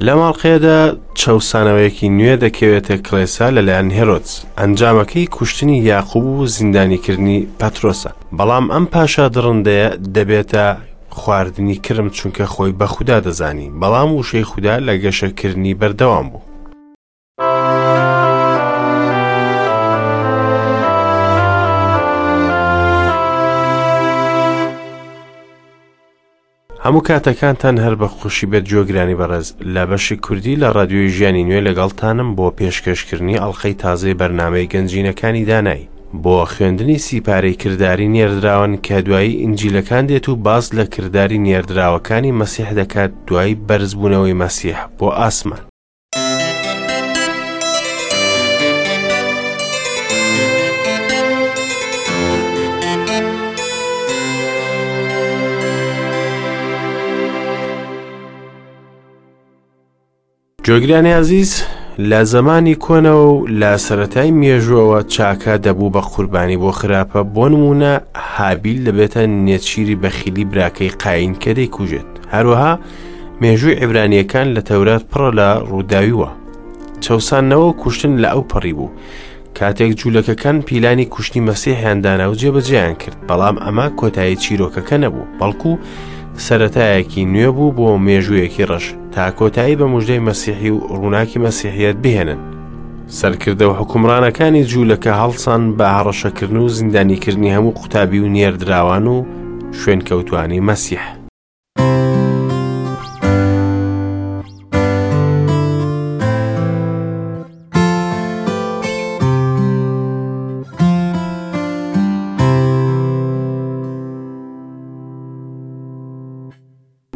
لەم ئەڵقەیەدا چەوسانەوەیەکی نوێ دەکەوێتە کڵێسا لەلایەن هێرۆدس، ئەنجامەکەی کوشتنی یاقوب و زیندانیکردنی پەترۆسە. بەڵام ئەم پاشا دڕندەیە دەبێتە خواردنی کرم چونکە خۆی بە خودا دەزانی، بەڵام وشەی خودا لە گەشەکردنی بەردەوام بوو. هەموو کاتەکانتان هەر بە خۆشی بێت گوێگرانی بەڕێز لە بەشی کوردی لە ڕادیۆی ژیانی نوێ لەگەڵتانم بۆ پێشکەشکردنی ئەڵلقەی تازەی بەرنامەی گەنجینەکانی دانایی بۆ خوێندنی سیپارەی کرداری نێردراوان کە دوایی ئینجیلەکان دێت و باس لە کرداری نێردراوەکانی مەسیح دەکات دوای بەرزبوونەوەی مەسیح بۆ ئاسمان. جۆگرانی ئازیز لە زەمانی کۆنەوە و لە سەتای مێژوەوە چاکە دەبوو بە قوربانی بۆ خراپە بۆ نمونە هابیل دەبێتە نێچیری بەخیلی براکەی قاین کە دەیکوژێت هەروەها مێژووی عیبرانییەکان لە تەورات پڕە لە ڕووداوی وا. چەوساندنەوە و کوشتن لە ئەو پەڕی بوو. کاتێک جوولەکەکان پیلانی کوشتنی مەسیحیان دانا و جێبەجێیان کرد، بەڵام ئەمە کۆتایی چیرۆکەکە نەبوو، بەڵکو سەرەتایەکی نوێ بوو بۆ مێژوویەکی ڕەش تا کۆتایی بە مژدەی مەسیحی و ڕووناکی مەسیحیەت بهێنن. سەرکردە و حوکمڕانەکانی جوولەکە هەڵسان بە هەڕەشەکردن و زیندانیکردنی هەموو قوتابی و نێردراوان و شوێنکەوتوانی مەسیح.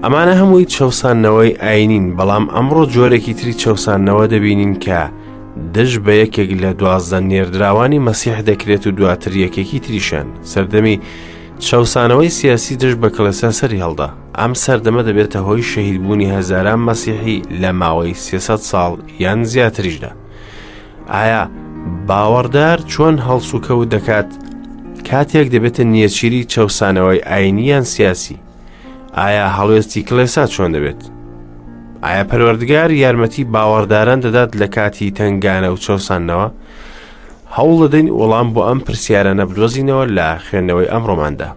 ئەمانە هەمووی چەوساندنەوەی ئاینین بەڵام ئەمڕۆ جۆرێکی تری چەوساندنەوە دەبینین کە دژ بە یەکێک لە دوازدە نێردراوانی مەسیح دەکرێت و دواتر یەکێکی تریشان سەردەمی چەوسانەوەی سیاسی دژ بە کڵێسا سەری هەڵدا. ئەم سەردەمە دەبێتە هۆی شەهیدبوونی هەزاران مەسیحی لە ماوەی 300 ساڵ یان زیاتریشدا. ئایا باوەڕدار چۆن هەڵسوکەوت دەکات کاتێک دەبێتە نێچیری چەوسانەوەی ئاینی یان سیاسی؟ ئایا هەڵوێستی کڵێسا چۆن دەبێت؟ ئایا پەروەردگار یارمەتی باوەڕداران دەدات لە کاتی تەنگانە و چەوساندنەوە؟ هەوڵ دەدەین وەڵام بۆ ئەم پرسیارانە بدۆزینەوە لە خوێندنەوەی ئەمڕۆماندا.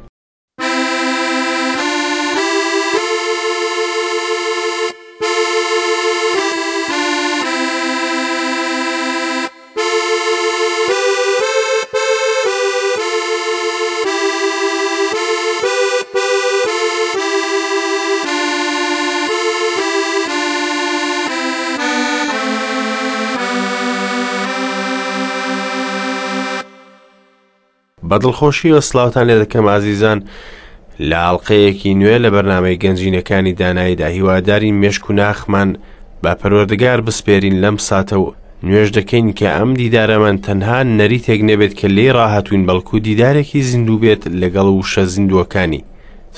بە دڵخۆشیەوە سلااوان لێ دەکەم ئازیزان لە ئاڵلقەیەکی نوێ لە بەرنمەی گەنجینەکانی داناییدا هیوادارین مێشک و ناخمان بە پەروەردگار بسپێرین لەم ساتە و نوێژ دەکەین کە ئەم دیدارەمان تەنها نەریتێک نەبێت کە لێی ڕاهاتوین بەڵکو دیدارێکی زیندوو بێت لەگەڵ وشە زیندووەکانی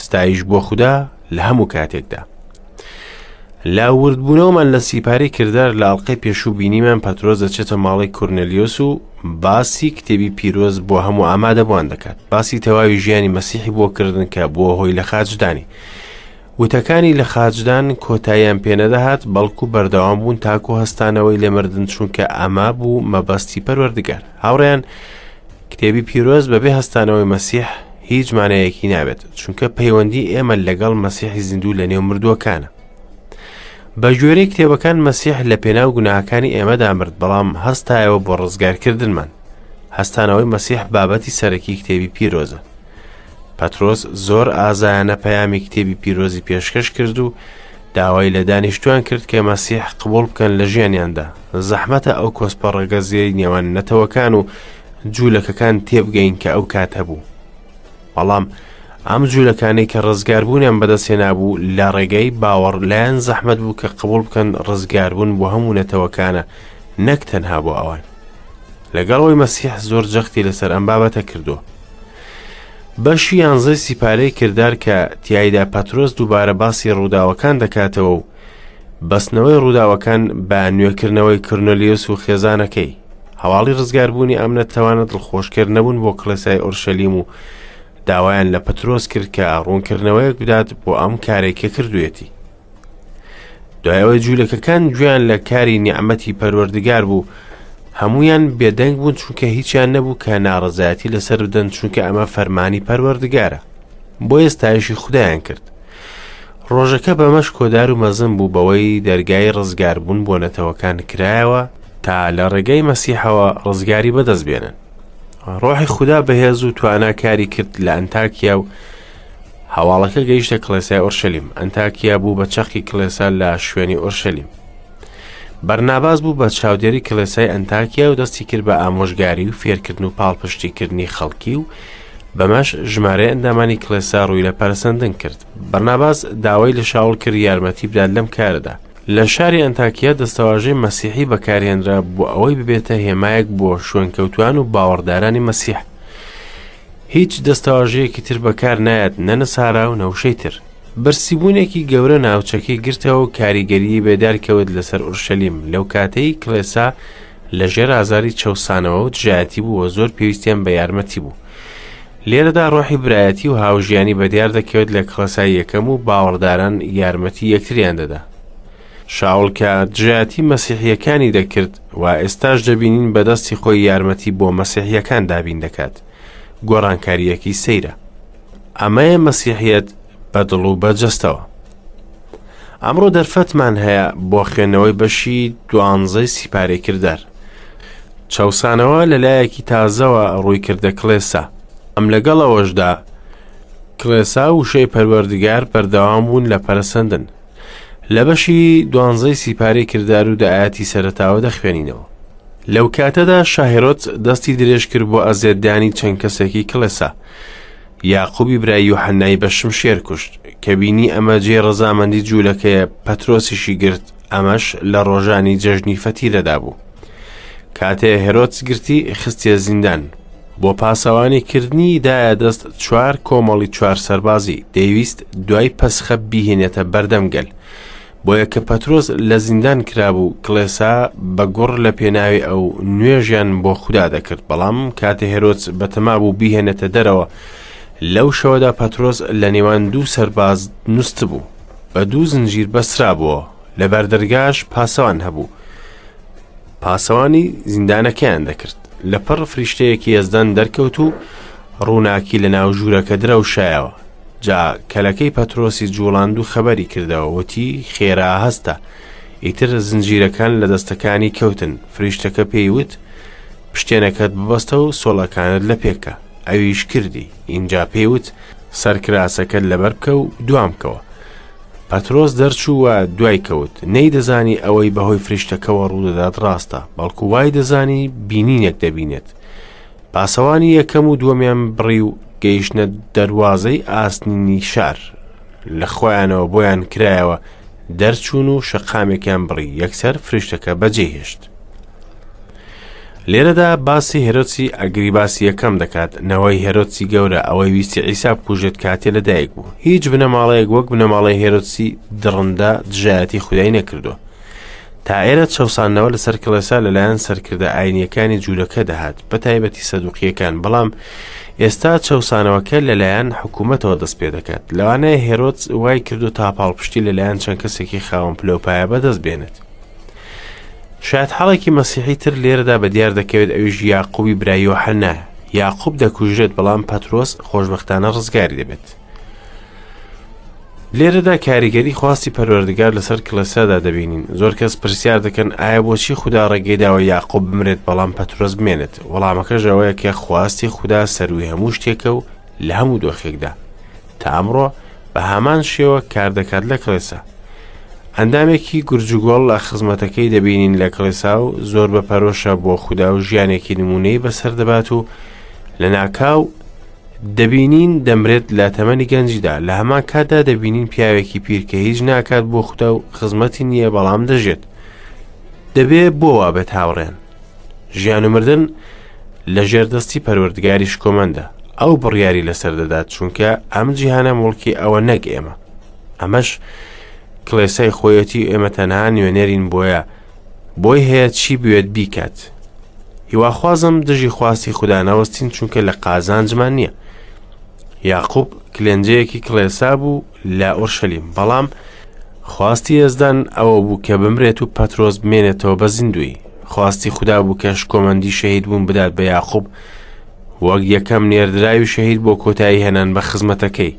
ستایش بۆ خودا لە هەموو کاتێکدا. لە وردبوونەوەمان لە سیپارەی کردار لە ئەڵلقەی پێشوو بینیمان پەترۆس دەچێتە ماڵی کورنلیۆس و باسی کتێبی پیرۆز بۆ هەموو ئامادەبووان دەکات باسی تەواوی ژیانی مەسیحی بۆ کردن کە بووە هۆی لە خاچدانی وتەکانی لە خاچدان کۆتاییان پێنەدەهات بەڵکو بەردەوام بوون تاکو هەستانەوەی لە مردن چونکە ئەمە بوو مەبەستی پەروەردگار هاوڕێیان کتێبی پیرۆز بەبێ هەستانەوەی مەسیح هیچ مانایەکی نابێت چونکە پەیوەندی ئێمە لەگەڵ مەسیحی زیندوو لە نێو مردووەکانە بە گوێرەی کتێبەکان مەسیح لە پێناو گوناهەکانی ئێمەدا مرد بەڵام هەستایەوە بۆ ڕزگارکردنمان هەستانەوەی مەسیح بابەتی سەرەکی کتێبی پیرۆزە پەترۆس زۆر ئازایانە پەیامی کتێبی پیرۆزی پێشکەش کرد و داوای لە دانیشتوان کرد کە مەسیح قبوڵ بکەن لە ژیانیاندا زەحمەتە ئەو کۆسپە ڕەگەزیەی نێوان نەتەوەکان و جوولەکەکان تێبگەین کە ئەو کات هەبوو بەڵام ئەم جوولەکانەی کە ڕزگاربوونیان بەدەستهێنابوو لە ڕێگەی باوەڕ لایەن زەحمەت بوو کە قبوڵ بکەن ڕزگاربوون بۆ هەموو نەتەوەکانە نەک تەنها بۆ ئەوان لەگەڵ ئەوەی مەسیح زۆر جەختی لەسەر ئەم بابەتە کردووە. بەشی یانزەی سیپارەی کردار کە تیایدا پەترۆس دووبارە باسی ڕووداوەکان دەکاتەوە و بەستنەوەی ڕووداوەکان بە نوێکردنەوەی کرنۆلیوس و خێزانەکەی هەواڵی ڕزگاربوونی ئەم نەتەوانە دڵخۆشکەر نەبوون بۆ کڵێسای ئۆرشەلیم و داوایان لە پەترۆس کرد کە ڕوونکردنەوەیەک بدات بۆ ئەم کارێک کە کردوێتی. دوای ئەوەی جوولەکەکان گوێیان لە کاری نیعمەتی پەروەردگار بوو، هەموویان بێدەنگ بوون چونکە هیچیان نەبوو کە ناڕەزایەتی لەسەر بدەن چونکە ئەمە فەرمانی پەروەردگارە. بۆیە ستایشی خودایان کرد. ڕۆژەکە بەمەش کۆدار و مەزن بوو بەوەی دەرگای ڕزگاربوون بۆ نەتەوەکان کرایەوە تا لە ڕێگەی مەسیحەوە ڕزگاری بەدەست بێنن. ڕۆحی خودا بەهێز و توانا کاری کرد لە ئەنتاکیا و هەواڵەکە گەیشتە کڵێسای ئۆرشەلیم. ئەنتاکیا بوو بە چەقی کڵێسا لە شوێنی ئۆرشەلیم. بەرناباس بوو بە چاودێری کڵێسای ئەنتاکیا و دەستی کرد بە ئامۆژگاری و فێرکردن و پاڵپشتیکردنی خەڵکی و بەمەش ژمارەی ئەندامانی کڵێسا ڕووی لە پەرەسەندن کرد. بەرناباس داوای لە شاوڵ کرد یارمەتی بدات لەم کارەدا. لە شاری ئەنتاکیا دەستەواژەی مەسیحی بەکارهێنرا بۆ ئەوەی ببێتە هێمایەک بۆ شوێنکەوتوان و باوەڕدارانی مەسیح. هیچ دەستەواژەیەکی تر بەکار نایەت نە نەسارا و نە وشەی تر. برسیبوونێکی گەورە ناوچەکەی گرتەوە و کاریگەریی بێدار کەوت لەسەر ئورشەلیم لەو کاتەی کڵێسا لە ژێر ئازاری چەوسانەوە و دژایەتی بوو و زۆر پێویستیان بە یارمەتی بوو. لێرەدا ڕۆحی برایەتی و هاوژیانی بەدیار دەکەوێت لە کڵێسای یەکەم و باوەڕداران یارمەتی یەکتریان دەدا. شاوڵ کە دژایەتی مەسیحییەکانی دەکرد و ئێستاش دەبینین بە دەستی خۆی یارمەتی بۆ مەسیحییەکان دابین دەکات. گۆڕانکارییەکی سەیرە. ئەمەیە مەسیحیەت بە دڵ و بە جەستەوە. ئەمڕۆ دەرفەتمان هەیە بۆ خوێندنەوەی بەشی دوانزەی سیپارەی کردار. چەوسانەوە لە لایەکی تازەوە ڕووی کردە کڵێسا. ئەم لەگەڵ ئەوەشدا کڵێسا و وشەی پەروەردگار بەردەوام بوون لە پەرەسەندن. لە بەشی دوانزەی سیپارەی کردار و دە ئایەتی سەرەتاوە دەخوێنینەوە. لەو کاتەدا شاهێرۆت دەستی درێژ کرد بۆ ئەزیەتدانی چەند کەسێکی کڵێسا. یاقوبی برای یوحەنای بە شمشێر کوشت. کە بینی ئەمە جێی ڕەزامەندی جوولەکەیە، پەترۆسیشی گرت، ئەمەش لە ڕۆژانی جەژنی فەتیرەدا بوو. کاتێ هێرۆدس گرتی، خستیە زیندان. بۆ پاسەوانی کردنی دایە دەست چوار کۆمەڵی چوار سەربازی، دەیویست دوای پەسخە بیهێنێتە بەردەم گەل. بۆیە کە پەترۆس لە زیندان کرابوو، کڵێسا بە گوڕ لە پێناوی ئەو نوێژیان بۆ خودا دەکرد. بەڵام کاتێ هێرۆدس بەتەما بوو بیهێنێتە دەرەوە، لەو شەوەدا پەترۆس لە نێوان دوو سەرباز نوستبوو، بە دوو زنجیر بەسترابووەوە، لە بەردەرگاش پاسەوان هەبوو، پاسەوانی زیندانەکەیان دەکرد. لەپڕ فریشتەیەکی یەزدان دەرکەوت و ڕووناکی لە ناو ژوورەکە درەوشایەوە. جا کەلەکەی پەترۆسی جوڵاند و خەبەری کردەوە، وتی، خێرا هەستە. ئیتر زنجیرەکان لە دەستەکانی کەوتن. فریشتەکە پێی وت، پشتێنەکەت ببەستە و سۆڵەکانت لە پێکە. ئەویش کردی. ئینجا پێی وت، سەرکراسەکەت لەبەر بکە و دوام بکەوە. پەترۆس دەرچوو و دوای کەوت، نەیدەزانی ئەوەی بەهۆی فریشتەکەوە ڕوودەدات ڕاستە، بەڵکو وای دەزانی بینینێک دەبینێت. پاسەوانی یەکەم و دووەمیان بڕی و گەیشتنە دەروازەی ئاسنینی شار. لە خۆیانەوە بۆیان کرایەوە، دەرچوون و شەقامێکیان بڕی، یەکسەر فریشتەکە بەجێی هێشت. لێرەدا باسی هێرۆدسی ئەگریباسی یەکەم دەکات، نەوەی هێرۆدسی گەورە، ئەوەی ویستی عیسا بکوژێت کاتێ لەدایک بوو. هیچ بنەماڵەیەک وەک بنەماڵەی هێرۆدسی دڕندە دژایەتی خودای نەکردووە. تا ئێرە چەوساندنەوە لەسەر کڵێسا لەلایەن سەرکردە ئاینیەکانی جوولەکە دەهات، بە تایبەتی سەدوقیەکان، بەڵام ئێستا چەوسانەوەکە لەلایەن حکوومەتەوە دەست پێ دەکات. لەوانەیە هێرۆدس وای کردو تا پاڵپشتی لەلایەن چەند کەسێکی خاوەن پلەوپایە بەدەست بێنێت. شایەتحاڵێکی مەسیحی تر لێرەدا بە دیار دەکەوێت ئەویش یاقوبی برای یۆحەنایە. یاقوب دەکوژرێت بەڵام پەترۆس خۆشبەختانە ڕزگاری دەبێت. لێرەدا کاریگەری خواستی پەروەردگار لەسەر کڵێسادا دەبینین. زۆر کەس پرسیار دەکەن ئایا بۆچی خودا ڕێگەی داوە یاقوب بمرێت بەڵام پەترۆس بمێنێت؟ وەڵامەکەش ئەوەیە کە خواستی خودا سەرووی هەموو شتێکە و لە هەموو دۆخێکدا. تا ئەمڕۆ بە هەمان شێوە کار دەکات لە کڵێسا. ئەندامێکی گورجوگۆڵ لە خزمەتەکەی دەبینین لە کڵێسا و زۆر بە پەرۆشە بۆ خودا و ژیانێکی نمونەی بەسەر دەبات و لە ناکاو دەبینین دەمرێت لە تەمەنی گەنجیدا لە هەمان کاتدا دەبینین پیاوێکی پیر کە هیچ ناکات بۆ خودا و خزمەتی نییە بەڵام دەژێت دەبێ بۆ وا بێت هاوڕێن ژیان و مردن لە ژێر دەستی پەروەردگاری شکۆمەندە ئەو بڕیاری لەسەر دەدات چونکە ئەم جیهانە موڵکی ئەوە نەک ئێمە ئەمەش کڵێسای خۆیەتی ئێمە تەنها نوێنەرین بۆیە بۆی هەیە چی بوێت بیکات هیواخوازم دژی خواستی خودا نەوەستین چونکە لە قازانجمان نییە یاقوب کلێنجەیەکی کڵێسا بوو لە ئۆرشەلیم بەڵام خواستی یەزدان ئەوە بوو کە بمرێت و پەترۆس بمێنێتەوە بە زیندوویی. خواستی خودا بوو کە شکۆمەندی شەهید بوون بدات بە یاقوب وەک یەکەم نێردراوی شەهید بۆ کۆتایی هێنان بە خزمەتەکەی.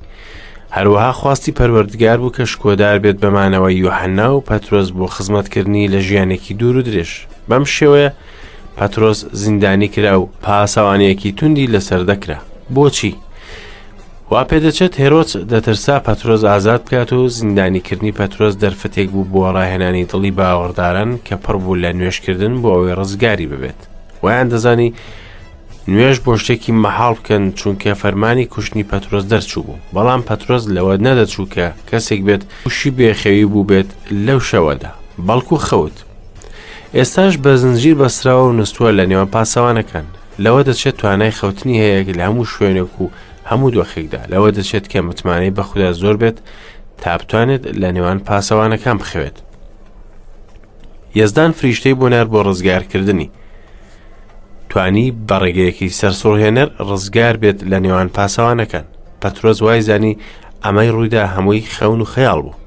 هەروەها خواستی پەروەردگار بوو کە شکۆدار بێت بە مانەوەی یۆحەنا و پەترۆس بۆ خزمەتکردنی لە ژیانێکی دوور و درێژ. بەم شێوەیە پەترۆس زیندانی کرا و پاسەوانیەکی توندی لەسەر دەکرا. بۆچی؟ وا پێدەچێت هێرۆدس دەترسا پەترۆس ئازاد بکات و زیندانیکردنی پەترۆس دەرفەتێک بوو بۆ ڕاهێنانی دڵی باوەڕداران کە پڕ بوو لە نوێژکردن بۆ ئەوەی ڕزگاری ببێت. وایان دەزانی نوێژ بۆ شتێکی مەحاڵ بکەن چونکە فەرمانی کوشتنی پەترۆس دەرچوو بوو بەڵام پەترۆس لەوە نەدەچوو کە کەسێک بێت تووشی بێخەوی بوو بێت لەو شەوەدا بەڵکو خەوت ئێستاش بە زنجیر بەستراوە و نووسووە لە نێوان پاسەوانەکان لەوە دەچێت توانای خەوتنی هەیە لە هەموو شوێنێک و هەموو دۆخێکدا لەوە دەچێت کە متمانەی بە خودا زۆر بێت تا بتوانێت لە نێوان پاسەوانەکان بخەوێت یەزدان فریشتەی بۆ نار بۆ ڕزگارکردنی توانی بە ڕێگەیەکی سەرسوڕهێنەر ڕزگار بێت لە نێوان پاسەوانەکان پەترۆس وای زانی ئەمەی ڕوویدا هەمووی خەون و خەیاڵ بوو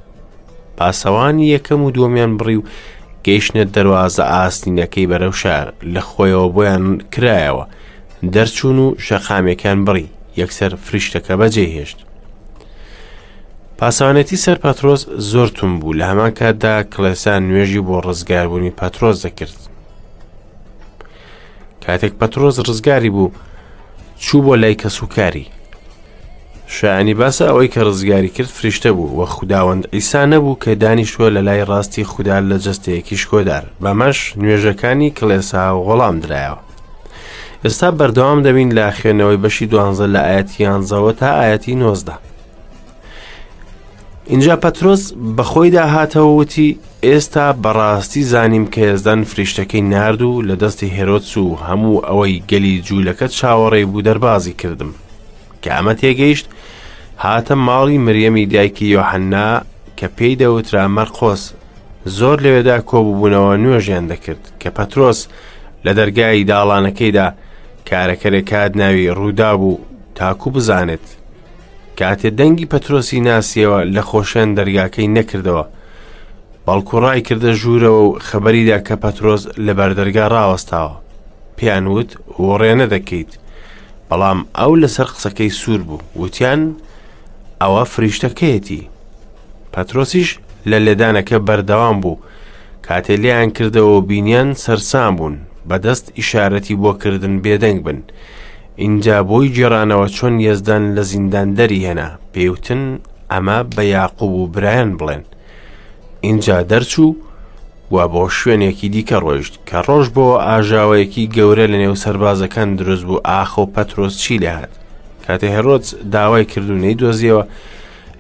پاسەوانی یەکەم و دووەمیان بڕی و گەیشتە دەروازە ئاسنینەکەی بەرەو شار لە خۆیەوە بۆیان کرایەوە دەرچوون و شەقامێکان بڕی یەکسەر فریشتەکە بەجێ هێشت پاسەوانێتی سەر پەترۆس زۆر تون بوو لە هەمان کاتدا کڵێسا نوێژی بۆ ڕزگاربوونی پەترۆس دەکرد کاتێک پەترۆس ڕزگاری بوو چوو بۆ لای کەسوکاری شایانی باسە ئەوەی کە ڕزگاری کرد فریشتە بوو و خوداوەند عیسا نەبوو کە دانیشتووە لە لای ڕاستی خودا لە جەستەیەکی شکۆدار بەمەش نوێژەکانی کڵێسا وەڵام درایەوە ئێستا بەردەوام دەبین لە خوێندنەوەی بەشی دوانزە لە ئاەتی یانزەوە تا ئاەتی نۆزدە اینجا پەترۆس بەخۆیدا هاتەوە وتی ئێستا بەڕاستی زانیم کە یەزدان فریشتەکەی نارد و لە دەستی هێرۆدس و هەموو ئەوەی گەلی جوولەکە چاوەڕێی بوو دەربازی کردم کە ئەمە تێگەیشت هاتە ماڵی مریەمی دایکی یۆحەننا کە پێی دەوترا مەرقۆس زۆر لەوێدا کۆببوونەوە نوێژیان دەکرد کە پەترۆس لە دەرگای داڵانەکەیدا کارەکەرێک هات ناوی ڕوودا بوو تاکو بزانێت کاتێ دەنگی پەترۆسی ناسیەوە لە خۆشیان دەرگاکەی نەکردەوە بەڵکو ڕای کردە ژوورەوە و خەبەریدا کە پەترۆس لە بەردەرگا ڕاوەستاوە پێیان وت وڕێ نەدەکەیت بەڵام ئەو لەسەر قسەکەی سوور بوو وتیان ئەوە فریشتەکەیەتی پەترۆسیش لە لێدانەکە بەردەوام بوو کاتێ لێیان کردەوە و بینیان سەرسام بوون بەدەست ئیشارەتی بۆ کردن بێدەنگ بن ئینجا بۆی گێڕانەوە چۆن یەزدان لە زیندان دەری هێنا پێیوتن ئەمە بە یاقوب و برایان بڵێن ئینجا دەرچوو و بۆ شوێنێکی دیکە ڕۆیشت کە ڕۆژ بۆ ئاژاوەیەکی گەورە لە نێو سەربازەکان دروست بوو ئاخۆ پەترۆس چی لێهات کاتێ هێرۆدس داوای کرد و نەیدۆزیەوە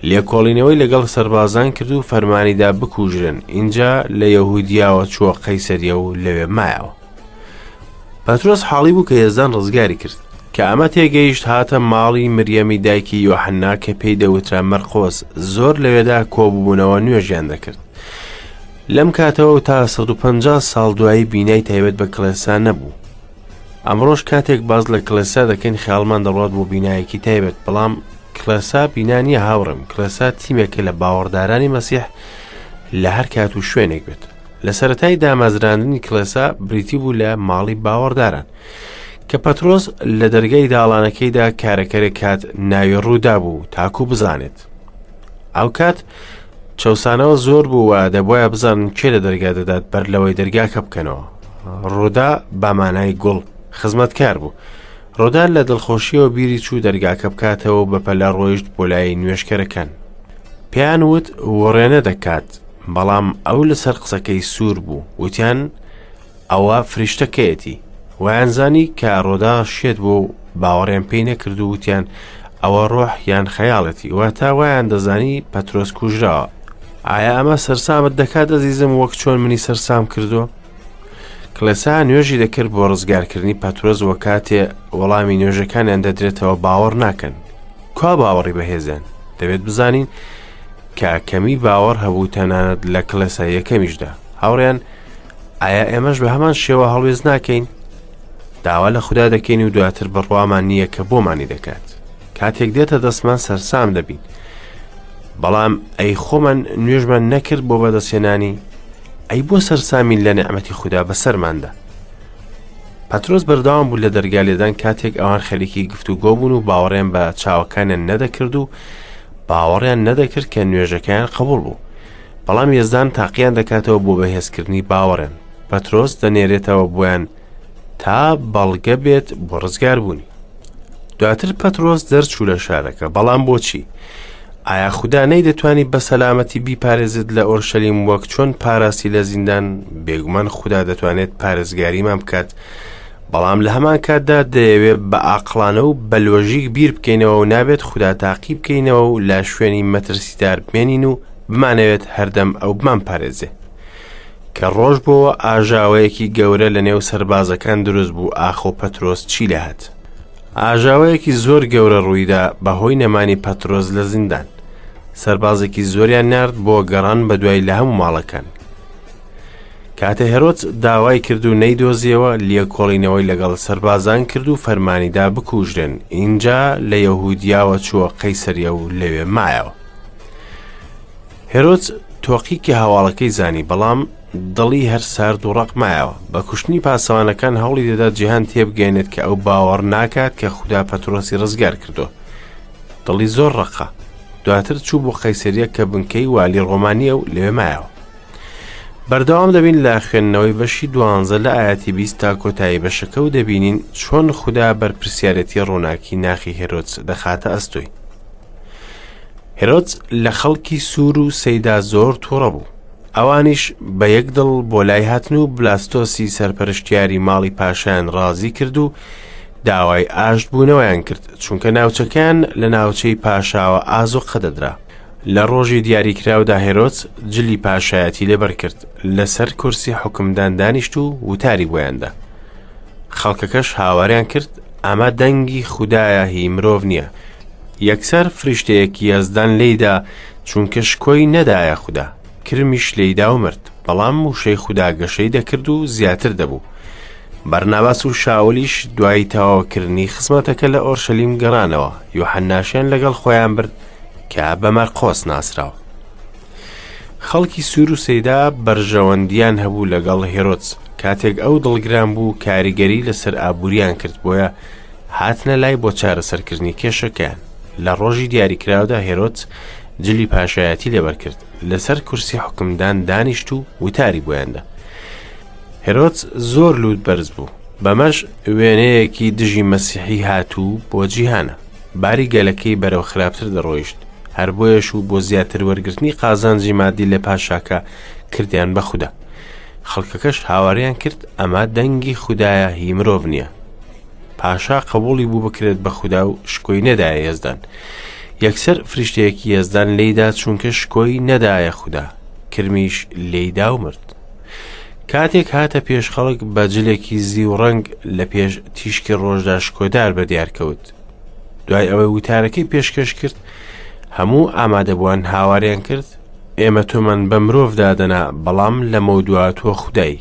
لێکۆڵینەوەی لەگەڵ سەربازان کرد و فەرمانیدا بکوژرن ئینجا لە یەهودیاوە چووە قەیسەریە و لەوێ مایەوە پەترۆس حاڵی بوو کە یەزدان ڕزگاری کرد کە ئەمە تێگەیشت هاتە ماڵی مریەمی دایکی یۆحەننا کە پێی دەوترا مەرقۆس زۆر لەوێدا کۆببوونەوە نوێژیان دەکرد لەم کاتەوە تا 150 ساڵ دوایی بینای تایبەت بە کڵێسا نەبوو ئەمڕۆش کاتێک باز لە کڵێسا دەکەین خیاڵمان دەڕات بۆ بینایەکی تایبەت بەڵام کڵێسا بینا نییە هاوڕێم کڵێسا تیمێکە لە باوەڕدارانی مەسیح لە هەر کات و شوێنێک بێت لە سەرەتای دامەزراندنی کڵێسا بریتی بوو لە ماڵی باوەڕداران کە پەترۆس لە دەرگای داڵانەکەیدا کارەکەرێک کات ناوی ڕوودا بوو تاکو بزانێت ئەو کات چەسانەوە زۆر بوو و دەبواە بزانن کێ لە دەرگا دەدات بەر لەوەی دەرگاکە بکەنەوە ڕوودا بامانای گوڵ خزمەتکار بوو ڕۆدا لە دڵخۆشیەوە بیری چوو دەرگاکە بکاتەوە و بەپەلە ڕۆیشت بۆ لای نوێژکەرەکان پێیان وت وڕێنە دەکات بەڵام ئەو لەسەر قسەکەی سوور بوو وتیان ئەوە فریشتەکەیەتی وایانزانی کە ڕۆدا شێت بوو و باوەڕیان پێی نەکرد و وتیان ئەوە ڕۆح یان خەیاڵەتی واتە وایان دەزانی پەترۆس کوژراوە ئایا ئەمە سەرسامت دەکات ئەزیزم وەک چۆن منی سەرسام کردووە کڵێسا نوێژی دەکرد بۆ ڕزگارکردنی پەترۆس وە کاتێ وەڵامی نوێژەکانیان دەدرێتەوە باوەڕ ناکەن کوا باوەڕی بەهێزیان دەبێت بزانین کە کەمی باوەڕ هەبوو تەنانەت لە کڵێسا یەکەمیشدا هاوڕیان ئایا ئێمەش بە هەمان شێوە هەڵوێست ناکەین داوا لە خودا دەکەین و دواتر بڕوامان نییە کە بۆمانی دەکات کاتێک دێتە دەستمان سەرسام دەبین. بەڵام ئەی خۆمان نوێژمان نەکرد بۆ بەدەستهێنانی؟ ئەی بۆ سەرسامین لە نیعمەتی خودا بەسەرماندا؟ پەترۆس بەردەوام بوو لە دەرگا لێدان کاتێک ئەوان خەریکی گفتوگۆ بوون و باوەڕیان بە چاوەکانیان نەدەکرد و باوەڕیان نەدەکرد کە نوێژەکەیان قبوڵ بوو. بەڵام یەزدان تاقییان دەکاتەوە بۆ بەهێزکردنی باوەڕیان. پەترۆس دەنێرێتەوە بۆیان تا بەڵگە بێت بۆ ڕزگاربوونی. دواتر پەترۆس دەرچوو لە شارەکە، بەڵام بۆچی؟ ئایا خودا نەیدەتوانی بە سەلامەتی بیپارێزێت لە ئۆرشەلیم وەک چۆن پاراستی لە زیندان؟ بێگومان خودا دەتوانێت پارێزگاریمان بکات، بەڵام لە هەمان کاتدا دەیەوێت بە ئاقڵانە و بە لۆژیک بیر بکەینەوە و نابێت خودا تاقی بکەینەوە و لە شوێنی مەترسیدار بمێنین و بمانەوێت هەردەم ئەو بمانپارێزێ. کە ڕۆژ بۆوە ئاژاوەیەکی گەورە لە نێو سەربازەکان دروست بوو ئاخۆ پەترۆس چی لێهات؟ ئاژاوەیەکی زۆر گەورە ڕوویدا بەهۆی نەمانی پەترۆس لە زیندان. سەربازێکی زۆریان نارد بۆ گەڕان بەدوای لە هەموو ماڵەکان. کاتێ هێرۆدس داوای کرد و نەیدۆزیەوە، لێکۆڵینەوەی لەگەڵ سەربازان کرد و فەرمانی دا بکوژرێن، ئینجا لە یەهودیاوە چووە قەیسەریە و لەوێ مایەوە. هێرۆدس تۆقی کە هەواڵەکەی زانی، بەڵام دڵی هەر سارد و ڕەق مایەوە. بە کوشتنی پاسەوانەکان هەوڵی دەدا جیهان تێبگەیەنێت کە ئەو باوەڕ ناکات کە خودا پەترۆسی ڕزگار کردووە. دڵی زۆر ڕەقە. دواتر چوو بۆ قەیسەریە کە بنکەی والی ڕۆمانییە و لەوێ مایەوە. بەردەوام دەبین لە خوێندنەوەی بەشی دوانزە لە ئایەتی 20 تا کۆتایی بەشەکە و دەبینین چۆن خودا بەرپرسیارێتی ڕووناکی ناخی هێرۆدس دەخاتە ئەستۆی. هێرۆدس لە خەڵکی سوور و سەیدا زۆر تووڕە بوو. ئەوانیش بە یەک دڵ بۆ لای هاتن و بلاستۆسی سەرپەرشتیاری ماڵی پاشایان ڕازی کرد و داوای ئاشتبوونەوەیان کرد، چونکە ناوچەکەیان لە ناوچەی پاشاوە ئازوقە دەدرا. لە ڕۆژی دیاریکراودا هێرۆدس جلی پاشایەتی لەبەر کرد، لەسەر کورسی حوکمدان دانیشت و وتاری بۆیان دا. خەڵکەکەش هاواریان کرد، ئەمە دەنگی خودایە هی مرۆڤ نییە. یەکسەر فریشتەیەکی یەزدان لێیدا، چونکە شکۆی نەدایە خودا. کرمیش لێیدا و مرد. بەڵام وشەی خودا گەشەی دەکرد و زیاتر دەبوو. بەرناباس و شاولیش دوای تەواوکردنی خزمەتەکە لە ئۆرشەلیم گەڕانەوە، یۆحەنناشیان لەگەڵ خۆیان برد کە بە مەرقۆس ناسراوە. خەڵکی سوور و سەیدا بەرژەوەندیان هەبوو لەگەڵ هێرۆدس، کاتێک ئەو دڵگران بوو کاریگەری لەسەر ئابووریان کرد، بۆیە هاتنە لای بۆ چارەسەرکردنی کێشەکەیان. لە ڕۆژی دیاریکراودا هێرۆدس جلی پاشایەتی لەبەر کرد، لەسەر کورسی حوکمدان دانیشت و وتاری بۆیان دا. هێرۆدس زۆر لووت بەرز بوو، بەمەش وێنەیەکی دژی مەسیحی هاتوو بۆ جیهانە. باری گەلەکەی بەرەو خراپتر دەڕۆیشت، هەر بۆیەش و بۆ زیاتر وەرگرتنی قازانجی مادی لە پاشاکە کردیان بە خودا. خەڵکەکەش هاواریان کرد ئەمە دەنگی خودایە هی مرۆڤ نییە. پاشا قبوڵی بوو بکرێت بە خودا و شکۆی نەدایە یەزدان. یەکسەر فریشتەیەکی یەزدان لێیدا چونکە شکۆی نەدایە خودا، کرمیش لێیدا و مرد. کاتێک هاتە پێش خەڵک بە جلێکی زیو ڕەنگ لە پێش تیشکی ڕۆژدا شکۆدار بە دیار کەوت. دوای ئەوەی وتارەکەی پێشکەش کرد، هەموو ئامادەبووان هاواریان کرد، ئێمە تۆمان بە مرۆڤ دادەنا، بەڵام لەمەودوا تۆ خودای.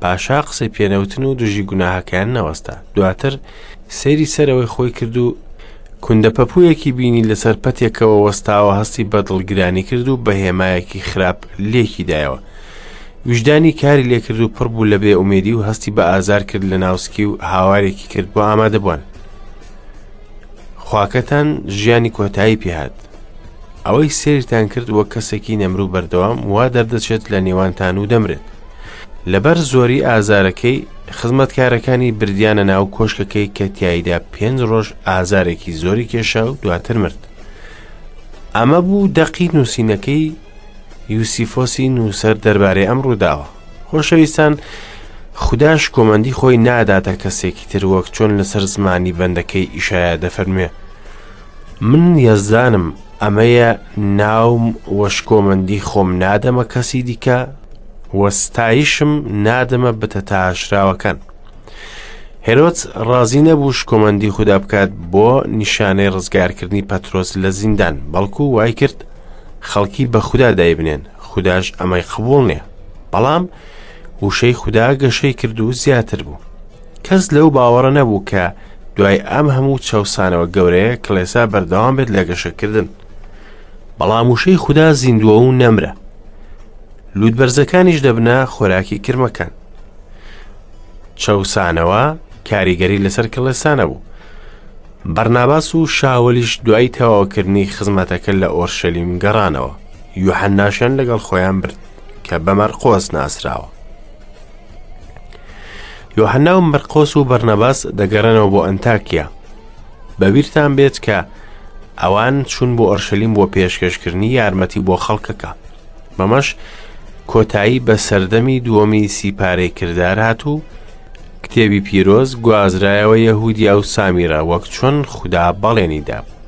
پاشا قسەی پێنەوتن و دژی گوناهەکەیان نەوەستا. دواتر سەیری سەرەوەی خۆی کرد و کوندە پەپوویەکی بینی لەسەر پەتێکەوە وەستاوە هەستی بە دڵگرانی کرد و بە هێمایەکی خراپ لێکی دایەوە. ویژدانی کاری لێکرد و پڕ بوو لە بێ ئومێدی و هەستی بە ئازار کرد لە ناوسکی و هاوارێکی کرد بۆ ئامادەبووان. خواکەتان ژیانی کۆتایی پێهات. ئەوەی سەیرتان کرد وەک کەسێکی نەمر و بەردەوام وا دەردەچێت لە نێوانتان و دەمرێت. لەبەر زۆری ئازارەکەی خزمەتکارەکانی بردیانە ناو کۆشکەکەی کە تیایدا پێنج ڕۆژ ئازارێکی زۆری کێشا و دواتر مرد. ئەمە بوو دەقی نووسینەکەی یوسیفۆسی نووسەر دەربارەی ئەم ڕووداوە. خۆشەویستان خودا شکۆمەندی خۆی ناداتە کەسێکی تر وەک چۆن لەسەر زمانی بەندەکەی ئیشایا دەفەرموێ من یەزدانم ئەمەیە ناوم و شکۆمەندی خۆم نادەمە کەسی دیکە و ستایشم نادەمە بتە تاشراوەکان. هێرۆدس ڕازی نەبوو شکۆمەندی خودا بکات بۆ نیشانەی ڕزگارکردنی پەترۆس لە زیندان، بەڵکو وای کرد خەڵکی بە خودا دایبنێن، خوداش ئەمەی قبوڵ نییە. بەڵام وشەی خودا گەشەی کرد و زیاتر بوو. کەس لەو باوەڕە نەبوو کە دوای ئەم هەموو چەوسانەوە گەورەیە کڵێسا بەردەوام بێت لە گەشەکردن. بەڵام وشەی خودا زیندووە و نەمرە. لووتبەرزەکانیش دەبنە خۆراکی کرمەکان. چەوسانەوە کاریگەری لەسەر کڵێسا نەبوو. بەرناباس و شاولیش دوای تەواوکردنی خزمەتەکە لە ئۆرشەلیم گەڕانەوە. یوحەناشیان لەگەڵ خۆیان برد کە بە مەرقۆس ناسراوە. یۆحەنا و مەرقۆس و بەرنەباس دەگەڕێنەوە بۆ ئەنتاکیا. بەبیرتان بێت کە ئەوان چوون بۆ ئۆرشەلیم بۆ پێشکەشکردنی یارمەتی بۆ خەڵکەکە. بەمەش کۆتایی بە سەردەمی دووەمی سیپارەی کردار هات و کتێبی پیرۆز گوازرایەوە یەهودیا و سامیرە وەک چۆن خودا بەڵێنی دابوو.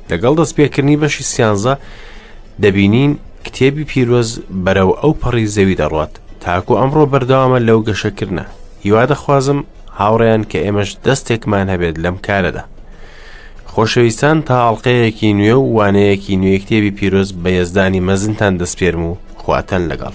لەگەڵ دەستپێکردنی بەشی سیانزە دەبینین کتێبی پیرۆز بەرەو ئەو پەڕی زەوی دەڕوات تاکو ئەمڕۆ بەردەوامە لەو گەشەکردنە هیوا دەخوازم هاوڕێیان کە ئێمەش دەستێکمان هەبێت لەم کارەدا خۆشەویستان تا ئەڵلقەیەکی نوێ و وانەیەکی نوێ کتێبی پیرۆز بە یەزدانی مەزنتان دەسپێرم و خواتان لەگەڵ.